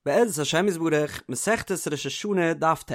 בעזרת השם יתברך, מסכת ראש השנה דף ט',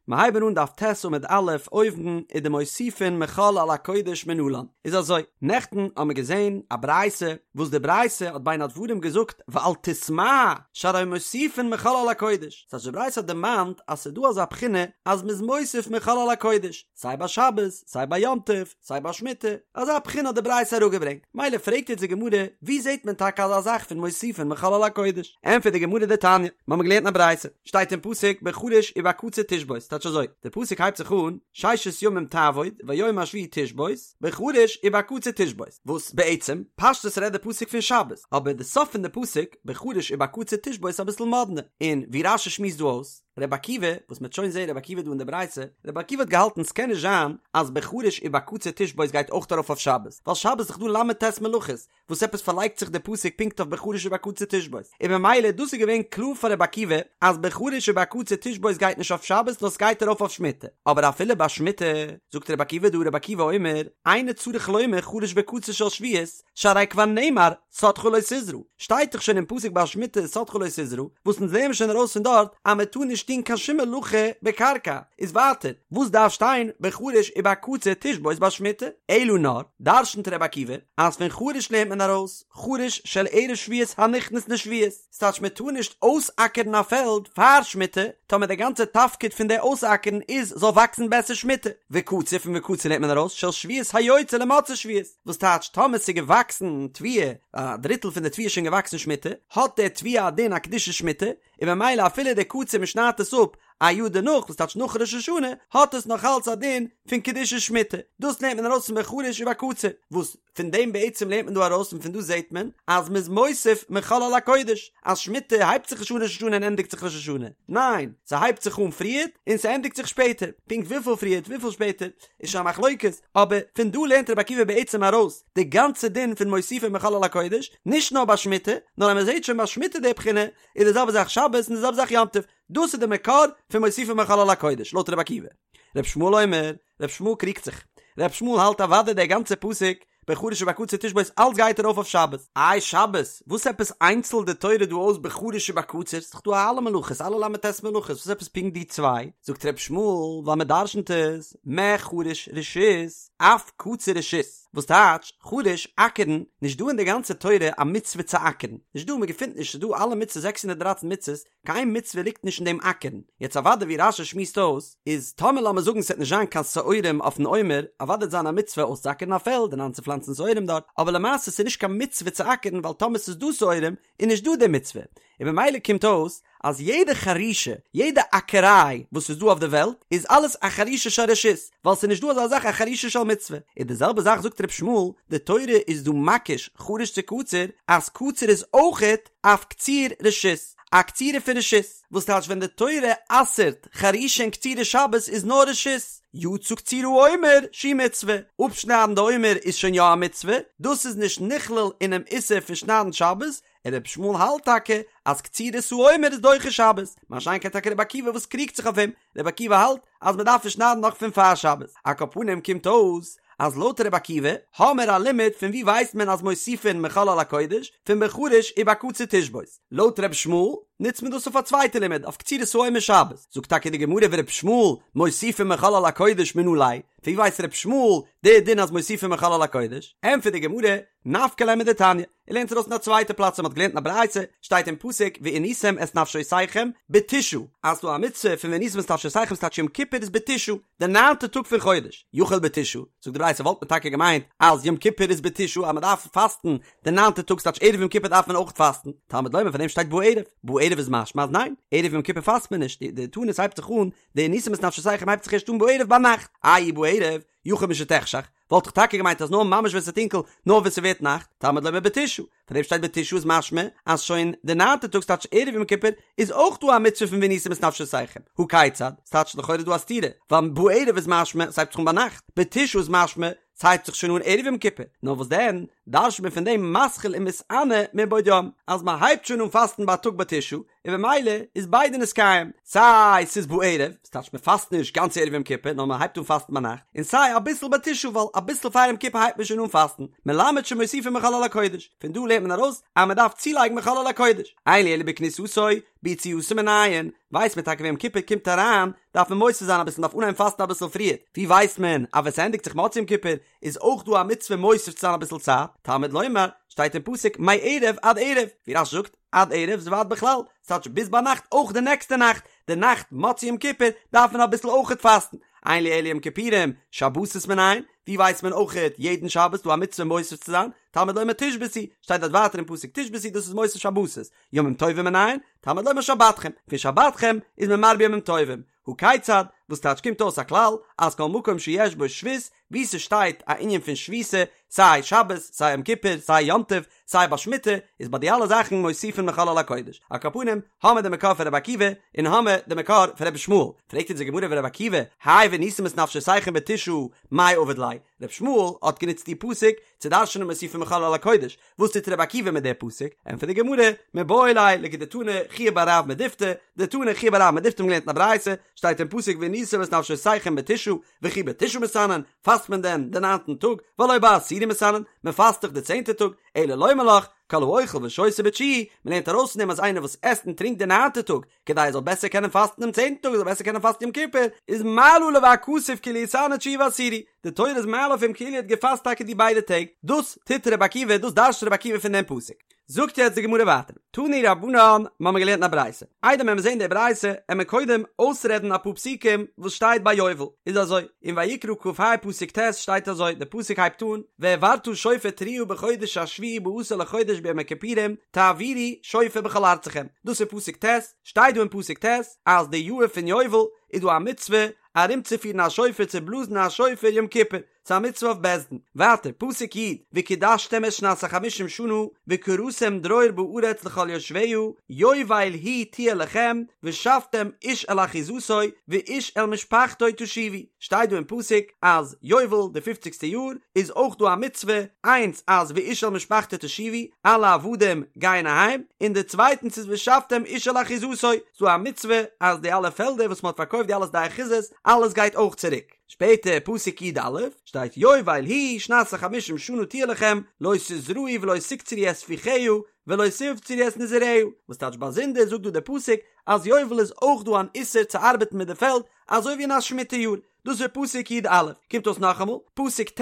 מיר הייבן אן דף ט' עמוד א', אויבן ודמוסיפין מחול על הקודש מנלן, איז אזוי, נעכטן האמיר געזען א ברייתא, וואס די ברייתא האט בין הדברים געזאגט ואל תתמה שהרי מוסיפין מחול על הקודש, ס'הייסט די ברייתא האט דערמאנט אז ס'איז דא אזא בחינה אז מ'איז מוסיף מחול על הקודש, סיי ביי שבת, סיי ביי יום טוב, סיי ביי שמיטה, אזא בחינה האט די ברייתא אראפגעברענגט, מילא פרעגט יעצט די גמרא, ווי זעט מען טאקע אזא זאך פון מוסיפין מחול על הקודש? ענטפערט די גמרא דתניא, מיר האבן געלערנט אין א ברייתא, שטייט אין פסוק בחריש ובקציר תשבות, טייטש אזוי, די פסוק הייבט זיך אן, ששת ימים תעבוד והיום השביעי תשבות, בחריש ובקציר תשבות, וואס בעצם, פשטות רעדט די פסוק פון שבת, אבער די סוף פון די פסוק, בחריש ובקציר תשבות איז אביסל מאדנע, און ווי רש"י שמועסט דא אויס, רבי עקיבא, וואס מ'וועט שוין זעהן רבי עקיבא דא אין די ברייתא, רבי עקיבא האט געהאלטן ס'קען נישט זיין אז בחריש ובקציר תשבות גייט אויך ארויף אויף שבת, ווייל שבת איז דאך דא ל"ט מלאכות, וואס עפעס פארלייגט זיך די פסוק פונקט אויף בחריש ובקציר תשבות, און במילא דאס איז געווען קלאר פאר רבי עקיבא אז בחריש ובקציר תשבות גייט נישט אויף שבת נאר ס'גייט ארויף אויף שמיטה, אבער אפילו ביי שמיטה, זאגט רבי עקיבא דא רבי עקיבא אומר, אינו צריך לומר חריש וקציר של שביעית, שהרי כבר נאמר שדך לא תזרע, שטייט דאך שוין אין פסוק ביי שמיטה שדך לא תזרע, וואס אונז לערנען שוין ארויס פון דארט אז מען טאר נישט טון קיין שום מלאכה בקרקע, איז ווייטער וואס דארף שטיין בחריש ובקציר תשבות ביי שמיטה? אלא נאר, דרשנ'ט ר' עקיבא, אז פון חריש לערנט מען ארויס, חריש של ערב שביעית הנכנס לשביעית, ס'טייטש מען טאר נישט אויסאקערן א פעלד פאר שמיטה, טאמער די גאנצע תפקיד פון די אויסאקערן איז זאל וואקסן בעסער שמיטה, וקציר פון וקציר לערנט מען ארויס של שביעית היוצא למוצאי שביעית. וואס טייטש טאמער ס'איז געוואקסן תבואה, א דריטל פון די תבואה איז שוין געוואקסן שמיטה, האט די תבואה א דין א קדושת שמיטה, און ממילא אפילו די קציר מ'שניידט עס אפ א יאר דערנאך וואס טייטש נאך ראש השנה, האט עס נאך אלץ א דין פון קדושת שמיטה, דאס לערנט מען ארויס פון בחריש ובקציר, וואס פון דעם בעצם לערנט מען דא ארויס און פון דא זעט מען אז מ'איז מוסיף מחול על הקודש, אז שמיטה הייבט זיך נישט אן ראש השנה און ענדיגט זיך ראש השנה, ניין, ס'הייבט זיך אן פריערט און ס'ענדיגט זיך שפעטער, פונקט וויפיל פריערט וויפיל שפעטער, איז שוין א מחלוקת, אבער פון דא לערנט רבי עקיבא בעצם ארויס די גאנצע דין פון מוסיפין מחול על הקודש, נישט נאר ביי שמיטה, נאר אז מען זעט שוין ביי שמיטה די בחינה, איז די זעלבע זאך שבת און די זעלבע זאך יום טוב, דאס איז די מקור פון מוסיפין מחול על הקודש, לויט רבי עקיבא. רבי ישמעאל אומר, רבי ישמעאל קריגט זיך, רבי ישמעאל האלט אוודאי דער גאנצער פסוק בחריש ובקציר תשבות אלץ גייט ארויף אויף שבת. איי שבת? וואס עפעס איינצלט די תורה דא אויס בחריש ובקציר? ס'איז דאך דא אלע מלאכות, אלע ל"ט מלאכות, וואס עפעס פונקט די צוויי? זאגט ר' ישמעאל, ווייל מען דרשנ'ט עס, מה חריש רשות, אף קציר רשות. וואס טייטש, חריש, אקערן, נישט דא אין די גאנצע תורה א מצוה צו אקערן. נישט דא, מען געפינט נישט, ס'איז דא אלע מצוות, 613 מצוות, קיין מצוה ליגט נישט אין דעם אקערן. יעצט אוודאי ווי רש"י שמועסט אויס, איז טאמער לאמיר זאגן ס'וועט נישט זיין קיין שעורים אויפן עומר, אוודאי וועט זיין א מצוה אויסצואקערן א פעלד און איינצופלאנצן שעורים דארט, אבער למעשה ס'איז נישט קיין מצוה צו אקערן ווייל טאמער ס'איז דא שעורים איז נישט דא די מצוה, און במילא קומט אויס אז יעדע חרישה, יעדע אקעריי וואס איז דא אויף די וועלט איז אלעס א חרישה של רשות, ווייל ס'איז נישט דא אזא זאך א חרישה של מצוה. און די זעלבע זאך זאגט ר' ישמעאל, די תורה איז דא מקיש חריש צו קציר, אז קציר איז אויכעט אף קציר רשות, א קצירה פון רשות, וואס טייטש ווען די תורה אסר'ט חרישה און קצירה שבת איז נאר רשות, יצא קציר העומר שהיא מצוה, אפשניידן די עומר איז שוין יא א מצוה, דאס איז נישט נכלל אינעם איסור פון שניידן שבת, און רבי ישמעאל האלט טאקע אז קצירת העומר איז דוחה שבת, מה שאין כן טאקע רבי עקיבא וואס קריגט זיך אויף אים, רבי עקיבא האלט אז מען דארף עס שניידן נאך פון פאר שבת, על כל פנים קומט אויס אז לויט רבי עקיבא האמער א לימוד פון ווי ווייסט מען אז מוסיפין מחול על הקודש פון בחריש ובקציר תשבות, לויט רבי ישמעאל נוצט מען דאס אויף א צווייטע לימוד אויף קצירת העומר שבת, זאגט טאקע די גמרא ורבי ישמעאל מוסיפין מחול על הקודש מנא ליה, פון ווי ווייסט רבי ישמעאל די דין אז מוסיפין מחול על הקודש, ענטפערט די גמרא, נפקא ליה מדתניא, ער לערנט ארויס אין א צווייטע פלאץ וואס מ'האט געלערנט אין א ברייתא, שטייט אין פסוק ועניתם את נפשותיכם בתשעה, אז ס'דא א מצוה פון ועניתם את נפשותיכם ס'טייטש יום כיפור איז בתשעה, די ניינטע טאג פון חודש, יכול בתשעה, זאגט די ברייתא וואלט מען טאקע געמיינט אז יום כיפור איז בתשעה אז מ'דארף פאסטן די ניינטע טאג ס'טייטש ערב יום כיפור דארף מען אויך פאסטן, תלמוד לומר פאר דעם שטייט בערב, בערב איז משמע אז ניין, ערב יום כיפור פאסט מען נישט, די תענית הייבט זיך אן, די ועניתם את נפשותיכם הייבט זיך ערשט אן בערב ביינאכט, איי בערב, יכול משתחשך, וואלט איך טאקע געמיינט אז נאר ממש ווען ס'איז טונקל, נאר ווען ס'ווערט נאכט, תלמוד לומר בתשעה, פאר דעם שטייט בתשעה איז משמע אז שוין די ניינטע טאג ס'טייטש ערב יום כיפור איז אויך דא א מצוה פון ועניתם את נפשותיכם, הא כיצד? ס'טייטש לכאורה דא א סתירה, ווייל בערב איז משמע ס'הייבט זיך אן ביינאכט, בתשעה איז משמע ס'הייבט זיך שוין אן ערב יום כיפור, נאר וואס דען דרש'ט מען פון דעם מתחיל ומתענה מבעוד יום, אז מ'הייבט שוין אן פאסטן בייטאג בתשעה, און במילא איז ביידע נתקיים, סיי ס'איז בערב, ס'טייטש מ'פאסט נישט גאנץ ערב יום כיפור נאר מ'הייבט אן פאסטן ביינאכט, און סיי אביסל בתשעה ווייל אביסל פאר יום כיפור הייבט מען שוין אן פאסטן, מלמד שמוסיפין מחול על הקודש, פון דא לערנט מען ארויס אז מ'דארף צולייגן מחול על הקודש, אין לי אלא בכניסתו, ביציאתו מנין, ווייסט מען טאקע ווען יום כיפור קומט אריין דארף מען מוסיף זיין אביסל מ'דארף אנהייבן פאסטן אביסל פריער, ווי ווייסט מען אז ווען ס'ענדיגט זיך מוצאי יום כיפור איז אויך דא א מצוה מוסיף צו זיין אביסל צייט, תלמוד לומר, שטייט אין פסוק מערב עד ערב, ווי רש"י זאגט, עד ערב איז ועד בכלל, ס'טייטש ביז ביינאכט אויך די נעקסטע נאכט, די נאכט מוצאי יום כיפור דארף מען אביסל אויכעט פאסטן, אין לי אלא יום כיפורים, שבתות מנין, ווי ווייסט מען אויכעט יעדן שבת דא א מצוה מוסיף צו זיין, תלמוד לומר תשבתו, שטייט דארט ווייטער אין פסוק תשבתו דאס איז מוסיף שבתות, ימים טובים מנין, תלמוד לומר שבתכם, פון שבתכם איז מען מרבה ימים טובים, הא כיצד, וואס טייטש קומט אויס א כלל אז כל מקום שיש בו שבות, וואו ס'שטייט א ענין פון שביתה, סיי שבת, סיי יום כיפור, סיי יום טוב, סיי ביי שמיטה, איז ביי די אלע זאכן מוסיפין מחול על הקודש. על כל פנים, האמער די מקור פון רבי עקיבא, און האמער די מקור פון רבי ישמעאל. פרעגט אונז די גמרא ורבי עקיבא, האי ועניתם את נפשותיכם בתשעה, מאי עביד ליה? רבי ישמעאל האט גענוצט די פסוק צו דרש'נען מוסיפין מחול על הקודש, וואס טוט רבי עקיבא מיט די פסוק? ענטפערט די גמרא, מיבעי ליה לכדתני חייא בר רב מדיפתי, דתני חייא בר רב מדיפתי האבן געלערנט אין א ברייתא, שטייט אין פסוק ועניתם את נפשותיכם בתשעה, וכי בתשעה מתענין, פאסט מען דען די ניינטן טאג, והלא בעשירי מתענין, מען פאסט דאך די צענטע טאג, אלא לומר לך, כל האוכל ושותה בתשיעי, מען לערנט ארויס פון דעם אז איינער וואס עסט און טרינקט די ניינטע טאג, כדי ער זאל בעסער קענען פאסטן דעם צענטן טאג, ער זאל בעסער קענען פאסטן יום כיפור, איז מעלה עליו הכתוב כאילו התענה תשיעי ועשירי, די תורה איז מעלה אויף אים כאילו ער האט געפאסט טאקע די ביידע טעג, דאס טוט רבי עקיבא, דאס דרש'ט רבי עקיבא פון דעם פסוק. זאגט יעצט די גמרא ווייטער, תנו רבנן, מ'האמיר געלערנט אין א ברייתא, איידער מען וועט זען די ברייתא, עמיר קודם אויסרעדן אפאר פסוקים וואס שטייט ביי יובל, איז אזוי, אין ויקרא כ"ה פסוק ט' שטייט אזוי, די פסוק הייבט אן, והעברת שופר תרועה בחודש השביעי בעשור לחודש ביום הכיפורים, תעבירו שופר בכל ארצכם, דאס איז פסוק ט', שטייט דא אין פסוק ט' אז די יאהר פון יובל איז דא א מצוה ארומצופירן א שופר צו בלאזן א שופר יום כיפור, ס'איז א מצוה אויף בית דין. ווייטער, פסוק י', וקדשתם את שנת החמישים שנה, וקראתם דרור בארץ לכל יושביה, יובל היא תהיה לכם, ושבתם איש אל אחוזתו, ואיש אל משפחתו תשובו. שטייט דא אין פסוק אז יובל, די פופציגסטע יאר, איז אויך דא א מצוה, איינס אז ואיש אל משפחתו תשובו, אלע עבדים גייען אהיים, און די צווייטנס איז ושבתם איש אל אחוזתו, ס'איז דא א מצוה אז די אלע פעלדער וואס מ'האט פארקויפט די אלע שדה אחוזות, אלעס גייט אויך צוריק. שפעטער פסוק י"א שטייט יובל היא שנת החמישים שנה תהיה לכם לא תזרעו ולא תקצרו את ספיחיה ולא תבצרו את נזיריה, וואס טייטש באזונדער זאגט דא דער פסוק אז יובל איז אויך דא אן איסור צו ארבעטן מיט די פעלד אזוי ווי אין א שמיטה יאר, דאס איז פסוק י"א, קומט אויס נאכאמאל פסוק ט'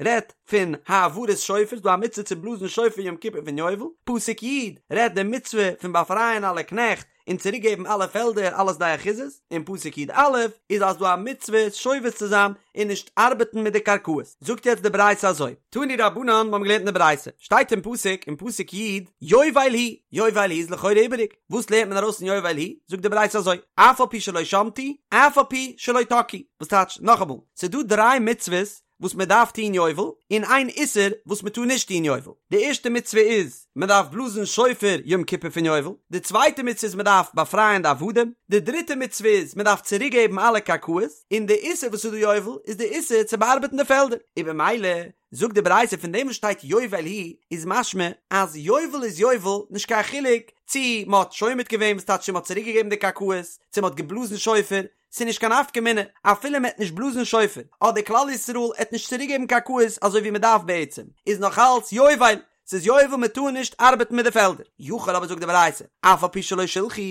רעדט פון העברת שופר, ס'דא א מצוה צו בלאזן שופר יום כיפור פון יובל, פסוק י' רעדט די מצוה פון באפרייען אלע קנעכט און צוריק געבן אלע פעלדער אלע שדה אחוזות, און פסוק י"א איז אז דא א מצוה שובת צו זיין און נישט ארבעטן מיט די קרקעות. זאגט יעצט די ברייתא אזוי, תנו רבנן, מיר האבן געלערנט אין די ברייתא, שטייט אין פסוק אין פסוק י' יובל היא, יובל היא איז לכאורה איבעריג, וואס לערנט מען ארויס פון יובל היא? זאגט די ברייתא אזוי, אף על פי שלא שמטו, אף על פי שלא תקעו, וואס טייטש, נאכאמאל, ס'איז דא דריי מצוות וואס מען דארף טון יובל, און איין איסור וואס מען טאר נישט טון יובל. די ערשטע מצוה איז, מען דארף בלאזן שופר יום כיפור פון יובל. די צווייטע מצוה איז מען דארף באפרייען די עבדים. די דריטע מצוה איז מען דארף צוריק געבן אלע קרקעות. און די איסור וואס איז דא יובל איז די איסור צו באארבעטן די פעלדער. און במילא זאגט די ברייתא פון דעם וואס שטייט יובל היא איז משמע אז יובל איז יובל נישט קיין חילוק צי מען האט שומט געווען וואס טייטש צו מען האט צוריק געגעבן די קרקעות, צו מען האט געבלאזן שופר, ס'איז נישט קיין נפקא מינה אפילו מ'עט נישט בלאזן שופר, אדער כלל ישראל עט נישט צוריקגעבן קרקעות אזוי ווי מ'דארף בעצם, איז נאך אלץ יובל, ס'איז יובל מ'טאר נישט ארבעטן מיט די פעלדער. יכול אבער זאגט די ברייתא, אף על פי שלא שילחו,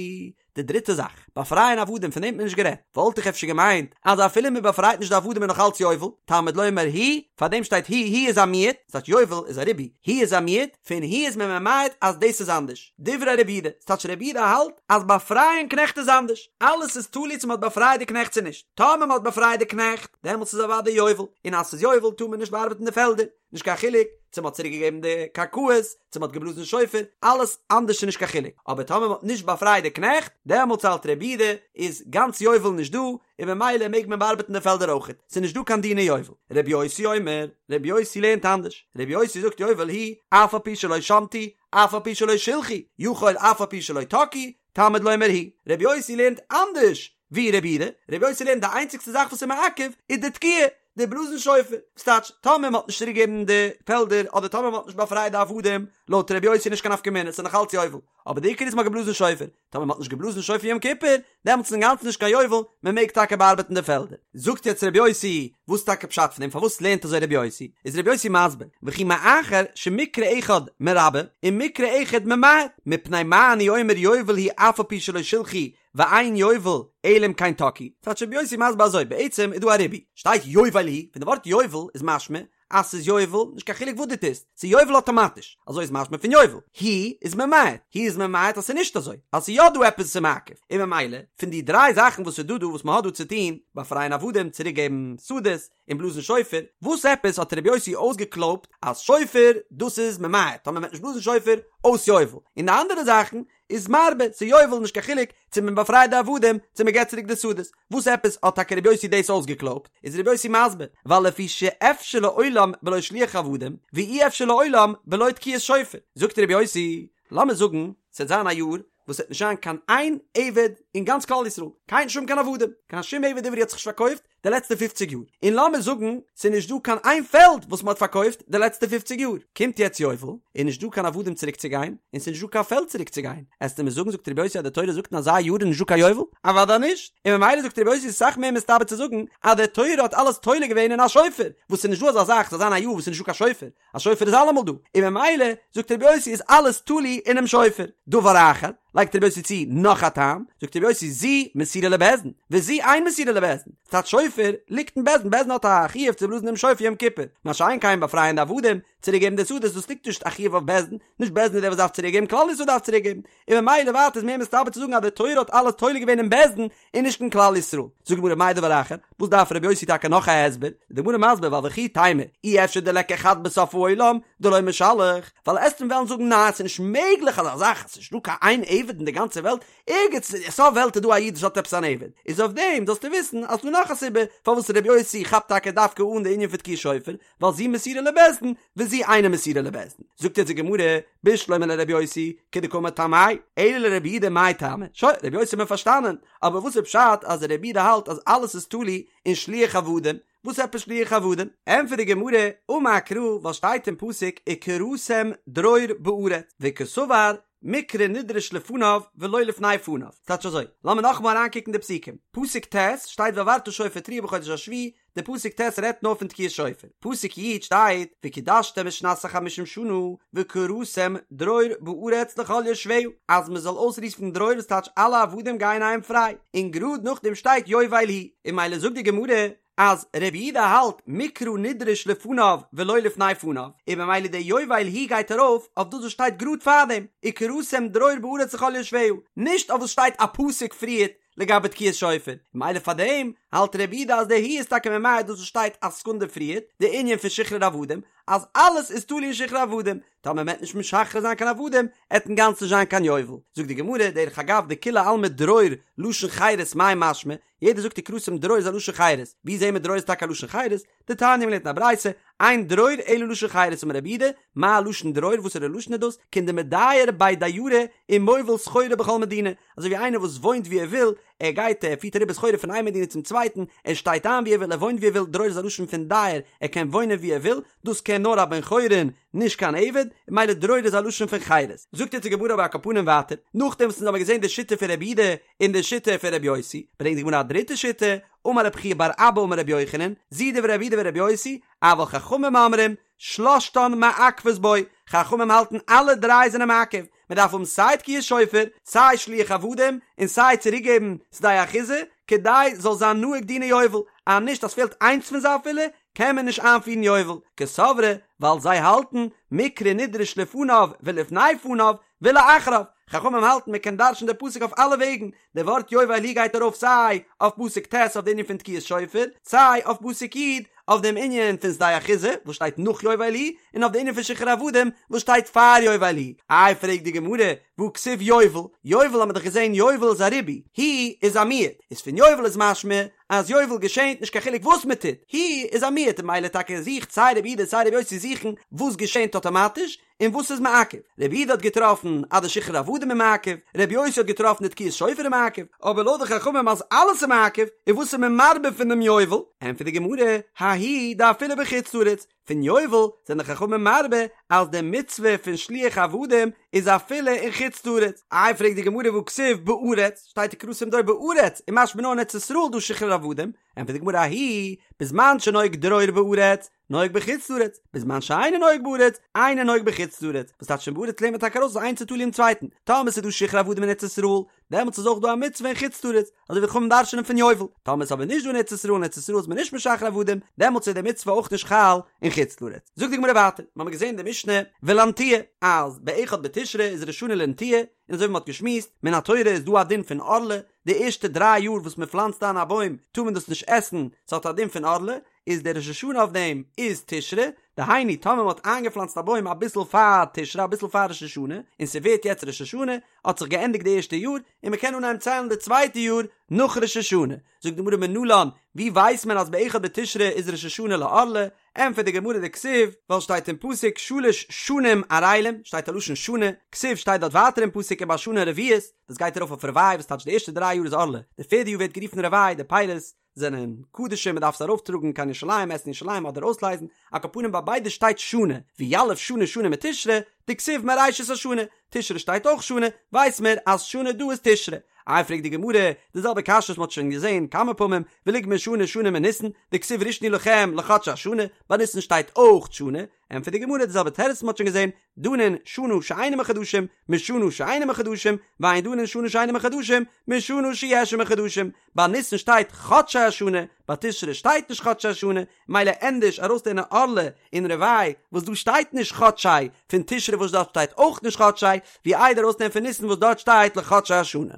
די דריטע זאך, באפרייען עבדים פון דעם האט מען נישט גערעדט, וואלט איך אפשר געמיינט אז אפילו מ'באפרייט נישט די עבדים איז נאך אלץ יובל, תלמוד לומר היא, פאר דעם שטייט היא, היא איז א מיעוט, ס'טייטש יובל איז א ריבוי, היא איז א מיעוט, פון היא איז מען ממעט אז דאס איז אנדערש. דברי רבי יהודה, ס'טייטש רבי יהודה האלט אז באפרייען קנעכט איז אנדערש, אלעס איז תלוי צו מ'האט באפרייט די קנעכט צו נישט, טאמער מ'האט באפרייט די קנעכט, דעמאלטס איז אוודאי יובל, און אז ס'איז יובל טאר מען נישט באארבעטן די פעלדער, נישט קיין חילוק צו מ'האט צוריק געגעבן די קרקעות, צו מ'האט געבלאזן שופר, אלעס אנדערש איז נישט קיין חילוק, אבער טאמער מ'האט נישט באפרייט די קנעכט, דעמאלטס האלט רבי יהודה איז גאנץ יובל נישט דא, און ממילא מעג מען באארבעטן די פעלדער אויכעט, ס'איז נישט דא קיין דיני יובל. רבי יוסי אומר, רבי יוסי לערנט אנדערש, רבי יוסי זאגט יובל היא, אף על פי שלא שמטו, אף על פי שלא שילחו, יכול אף על פי שלא תקעו, תלמוד לומר היא. רבי יוסי לערנט אנדערש ווי רבי יהודה, רבי יוסי לערנט די איינציגסטע זאך וואס איז מעכב איז די תקיעה, די בלאזן שופר, וואס טייטש טאמער מען האט נישט צוריק געגעבן די פעלדער אדער טאמער מען האט נישט באפרייט די עבדים, לויט רבי יוסי נישט קיין נפקא מינה, ס'איז נאך אלץ יובל. אבער די עיקר איז מ'האט געבלאזן שופר, טאמער מ'האט נישט געבלאזן שופר יום כיפור, דעמאלטס איז אינגאנצן נישט קיין יובל, מ'מעג טאקע באארבעטן די פעלדער. זאגט יעצט ר' יוסי, וואס איז טאקע פשט פון דעם, פארוואס לערנט אזוי ר' יוסי? איז ר' יוסי מסביר, וכי מאחר שמקרא אחד מרבה ומקרא אחד ממעט, מפני מה אני אומר יובל הוא אף על פי שלא שילחו ואין יובל אלא אם כן תקעו. טייטש ר' יוסי מסביר אזוי, בעצם איז דא א ריבוי, שטייט יובל הוא, פון די ווארט יובל איז משמע אז ס'איז יובל, נישט קיין חילוק וואס דו טוסט, ס'איז יובל אטאמאטיש, אזוי איז משמע פון יובל. הוא איז ממעט, הוא איז ממעט אז ס'איז נישט אזוי, אז ס'איז יא דא עפעס וואס איז מעכב, און ממילא, פון די דריי זאכן וואס איז דא דא וואס מ'האט דא צו טון, באפרייען עבדים, צוריק געבן שדות, און בלאזן שופר, וואס עפעס האט רבי יוסי אויסגעקלויבט אז שופר דאס איז ממעט, טאמער מ'וועט נישט בלאזן שופר, אויס יובל, און די אנדערע זאכן איז מרבה, ס'איז יובל נישט קיין חילוק צו מען באפרייט די עבדים צו מען געבט צוריק די שדות, וואס עפעס האט טאקע רבי יוסי דאס אויסגעקלויבט? איז רבי יוסי מסביר, ווייל לפי שאפשר לעולם בלא שליח עבדים, ואי אפשר לעולם בלא תקיעת שופר, זאגט רבי יוסי, לאמיר זאגן ס'וועט זיין א יאר וואס ס'וועט נישט זיין קיין איין עבד אין גאנץ כלל ישראל, קיין שום קיין עבדים, קיין שום עבד עברי האט זיך נישט פארקויפט, די לעצטע פופציג יאר, און לאמיר זאגן ס'איז נישט דא קיין איין פעלד וואס מ'האט פארקויפט די לעצטע פופציג יאר, קומט יעצט יובל, איז נישט דא קיין עבדים צוריק צו גיין, און ס'איז נישט דא קיין פעלד צוריק צו גיין, עסטו מיר זאגן זאגט רבי יוסי אז די תורה זאגט אין אזא יאר איז נישט דא קיין יובל? אוודאי נישט, און ממילא זאגט רבי יוסי איז אסאך מער מסתבר צו זאגן אז די תורה האט אלעס תולה געווען אין א שופר, וואס ס'איז נישט דא אזא זאך ס'זאל זיין א יאר וואס ס'איז נישט דא קיין שופר, א שופר איז אלעמאל דא, און ממילא זאגט רבי יוסי איז אלעס תלוי אינעם שופר. דבר אחר, לייגט רבי יוסי צו נאך א טעם, זאגט רבי יוסי זו מסורה לבית דין, וזו אין מסורה לבית דין, ס'טייטש שופר ליגט אין בית דין, בית דין האט א חיוב צו בלאזן דעם שופר יום כיפור, מה שאין כן באפרייען די עבדים, צוריק געבן די שדות, דאס ליגט נישט א חיוב אויף בית דין, נישט בית דין איז דער וואס דארף צוריק געבן, כלל ישראל דארף צוריק געבן, און ממילא ווייטער איז מער מסתבר צו זאגן אז די תורה האט אלעס תולה געווען אין בית דין, און נישט אין כלל ישראל. זאגט די גמרא מאי דבר אחר, וואס דארף רבי יוסי טאקע נאך א הסבר? איז די גמרא מסביר ווייל וכי תימא אי אפשר דליכא חד בסוף העולם דלא משלח, ווייל עסט מיר וועלן זאגן ניין ס'איז נישט מעגליך אזא זאך, ס'איז נישט דא קיין איין עבד אין די גאנצע וועלט, ערגעץ אין סוף וועלט איז דא א איד וואס האט עפעס אן עבד, איז אויף דעם זאלסטו וויסן אז ס'דא נאך א סיבה פארוואס רבי יוסי כאפט טאקע דווקא אן די ענין פון תקיעת שופר, ווייל זו מסורה לבית דין וזו אינה מסורה לבית דין. זאגט יעצט די גמרא, בשלמא לרבי יוסי, כדקאמר טעמיה, אלא לרבי יהודה מאי טעמא? שוין, רבי יוסי האט מען פארשטאנען, אבער וואס איז פשט אז רבי יהודה האלט אז אלעס איז תלוי אין שליח עבדים? וואס עפעס שליח עבדים? ענטפערט די גמרא, אמר קרא, ווייל שטייט אין פסוק וקראתם דרור בארץ, וקסבר מקרא נדרש לפניו ולא לפני פניו. ס'טייטש אזוי, לאמיר נאכאמאל אריינקוקן די פסוקים. פסוק ט' שטייט והעברת שופר תרועה בחודש השביעי, די פסוק ט' רעדט נאר פון תקיעת שופר, פסוק י' שטייט וקדשתם את שנת החמישים שנה וקראתם דרור בארץ לכל יושביה אז מען זאל אויסרופן דרור וואס טייטש אלע עבדים גייען אהיים פריי, און גראד נאכדעם שטייט יובל הוא, און ממילא זאגט די גמרא אז רבי יהודה האלט מקרא נדרש לפניו ולא לפני פניו, און ממילא די יובל הוא גייט ארויף אויף דאס וואס שטייט גראד פארדעם וקראתם דרור בארץ לכל יושביה, נישט אויף וואס שטייט א פסוק פריערט לגבי תקיעת שופר, ממילא פאר דעם האלט רבי יהודה אז די הוא איז טאקע ממעט דאס וואס שטייט א סעקונדע פריערט, די ענין פון שחרור עבדים, אז אלעס איז תלוי אין שחרור עבדים, טאמער מ'עט נישט משחרר זיין קיין עבדים, עט אינגאנצן נישט זיין קיין יובל. זאגט די גמרא, דרך אגב דכולי עלמא דרור לשון חירות מאי משמע, יעדער זאגט וקראתם דרור איז א לשון חירות, ווי זעהן מיר דרור איז טאקע א לשון חירות? דתניא מ'לערנט אין א ברייתא, אין דרור אלא לשון חירות אמר רבי יהודה, מה לשון דרור וואסערע לשון איז דאס? כעין דמדייר בי דיירי ומוביל סחורה בכל מדינה, אזוי ווי איינער וואס וואוינט ווי ער וויל, ער גייט ער פירט אריבער סחורה פון איין מדינה צום צווייטן, ער שטייט איין ווי ער וויל ער וואוינט ווי ער וויל, דרור איז א לשון פון דייר, ער קען וואוינען ווי ער וויל, דאס קען נאר א בן חורין, נישט קיין עבד, און ממילא דרור איז א לשון פון חירות. זאגט אונז די גמרא אבער על כל פנים ווייטער, נאכדעם וואס אונז האבן געזען די שיטה פון רבי יהודה און די שיטה פון רבי יוסי, ברענגט די גמרא א דריטע שיטה, אמר רב חייא בר אבא אמר רבי יוחנן, זו דברי רבי יהודה ורבי יוסי, אבל חכמים אומרים, שלשתן מעכבות בו, חכמים האלטן אלע דריי זענען מעכב, מען דארף האבן סיי תקיעת שופר, סיי שליח עבדים, און סיי צוריקגעבן שדה אחוזה, כדי זאל זיין נוהג דיני יובל, אז נישט אז פעלט איינס פון זיי אפילו, קען מען נישט איינפירן יובל, קסברי, ווייל זיי האלטן, מקרא נדרש לפניו ולפני פניו, ולאחריו, חכמים האלטן מען קען דרש'ן די פסוק אויף אלע וועגן, די ווארט יובל הוא גייט ארויף סיי אויף פסוק ט' אויף די ענין פון תקיעת שופר, סיי אויף פסוק י' אויף דעם ענין פון שדה אחוזה וואס שטייט נאך יובל הוא, און אויף די ענין פון שחרור עבדים וואס שטייט פאר יובל הוא. איי פרעגט די גמרא, והא כתיב יובל, יובל האט מען דאך געזען יובל איז א ריבוי, הוא איז א מיעוט, איז פון יובל איז משמע אז יובל געשענט נישט קיין חילוק וואס מען טוט, הוא איז א מיעוט און ממילא טאקע זוכט סיי רבי יהודה סיי רבי יוסי זוכן וואס געשענט אטאמאטיש, און וואס איז מעכב? רבי יהודה האט געטראפן אז די שחרור עבדים איז מעכב, רבי יוסי האט געטראפן די תקיעת שופר איז מעכב, אבער לויט די חכמים אז אלעס איז מעכב, איז וואס איז מען מרבה פון דעם יובל? ענטפערט די גמרא, ההוא דאפילו בחוץ לארץ, פון יובל זענען די חכמים מרבה אז די מצוה פון שילוח עבדים איז אפילו אין חוץ לארץ. איי פרעגט די גמרא והכתיב בארץ, שטייט וקראתם דרור בארץ, און משמע נאר אין ארץ ישראל דא שחרור עבדים, ענטפערט די גמרא ההוא בזמן שנוהג דרור בארץ, נוהג בחוץ לארץ, בזמן שאינו נוהג בארץ, אינו נוהג בחוץ לארץ, וואס טייטש פון בארץ לערנט מען טאקע ארויס אז איינס איז תלוי אין צווייטן, טאמער ס'איז דא שחרור עבדים אין ארץ ישראל, דעמאלטס איז אויך דא א מצוה אין חוץ לארץ, אזוי ווי חכמים דרש'נען פון יובל, טאמער איז אבער נישט דא אין ארץ ישראל, אין ארץ ישראל איז מען נישט משחרר עבדים, דעמאלטס איז די מצוה אויך נישט חל אין חוץ לארץ. זאגט די גמרא ווייטער, מ'האמיר געזען אין די משנה ולנטיעה, אז באחד בתשרי איז ראש השנה לנטיעה, און אזוי ווי מ'האט געשמועסט, מן התורה איז דא א דין פון ערלה, די ערשטע דריי יאר וואס מ'פלאנצט איין א בוים טאר מען דאס נישט עסן, ס'האט א דין פון ערלה, איז דער ראש השנה אויף דעם איז תשרי, דהיינו טאמער מ'האט איינגעפלאנצט א בוים אביסל פאר תשרי אביסל פאר ראש השנה, און ס'ווערט יעצט ראש השנה, האט זיך געענדיגט די ערשטע יאר, און מ'קען אנהייבן ציילן די צווייטע יאר נאך ראש השנה. זאגט די גמרא מנלן, ווי ווייסט מען אז באחד בתשרי איז ראש השנה לערלה? ענטפערט די גמרא דכתיב, ווייל שטייט אין פסוק שלש שנים ערלים, שטייט א לשון שנה, כתיב שטייט דארט ווייטער אין פסוק ובשנה הרביעית, דאס גייט ארויף אויף רבעי וואס טייטש די ערשטע דריי יאר איז ערלה, די פערדע יאר ווערט גערופן רבעי, די פירות זענען קדשים מען דארף עס ארויף טראגן קיין ירושלים עסן אין ירושלים אדער אויסלייזן, על כל פנים ביי ביידע שטייט שנה, ויליף שנה שנה מתשרי, דכתיב מראשית השנה, תשרי שטייט אויך שנה, ווייס מיר אז שנה דא איז תשרי. איי פרעגט די גמרא, די זעלבע קשיא וואס מען האט שוין געזען כמה פעמים, וליגמר שנה שנה מניסן, דכתיב ראשון הוא לכם לחדשי השנה, ביי ניסן שטייט אויך שנה, ענטפערט די גמרא די זעלבע תירוץ וואס מען האט שוין געזען, דנין שנה שאינה מחדשים, משנה שאינה מחדשים, ואין דנין שנה שאינה מחדשים, משנה שיש עמה חדשים, ביי ניסן שטייט חדשי השנה, ביי תשרי שטייט נישט חדשי השנה, מילא ענדערש ארויסלערנען ערלה און רבעי וואס דא שטייט נישט חדשי, פון תשרי וואס דארט שטייט אויך נישט חדשי, ווי איידער ארויסלערנען פון ניסן וואס דארט שטייט לחדשי השנה.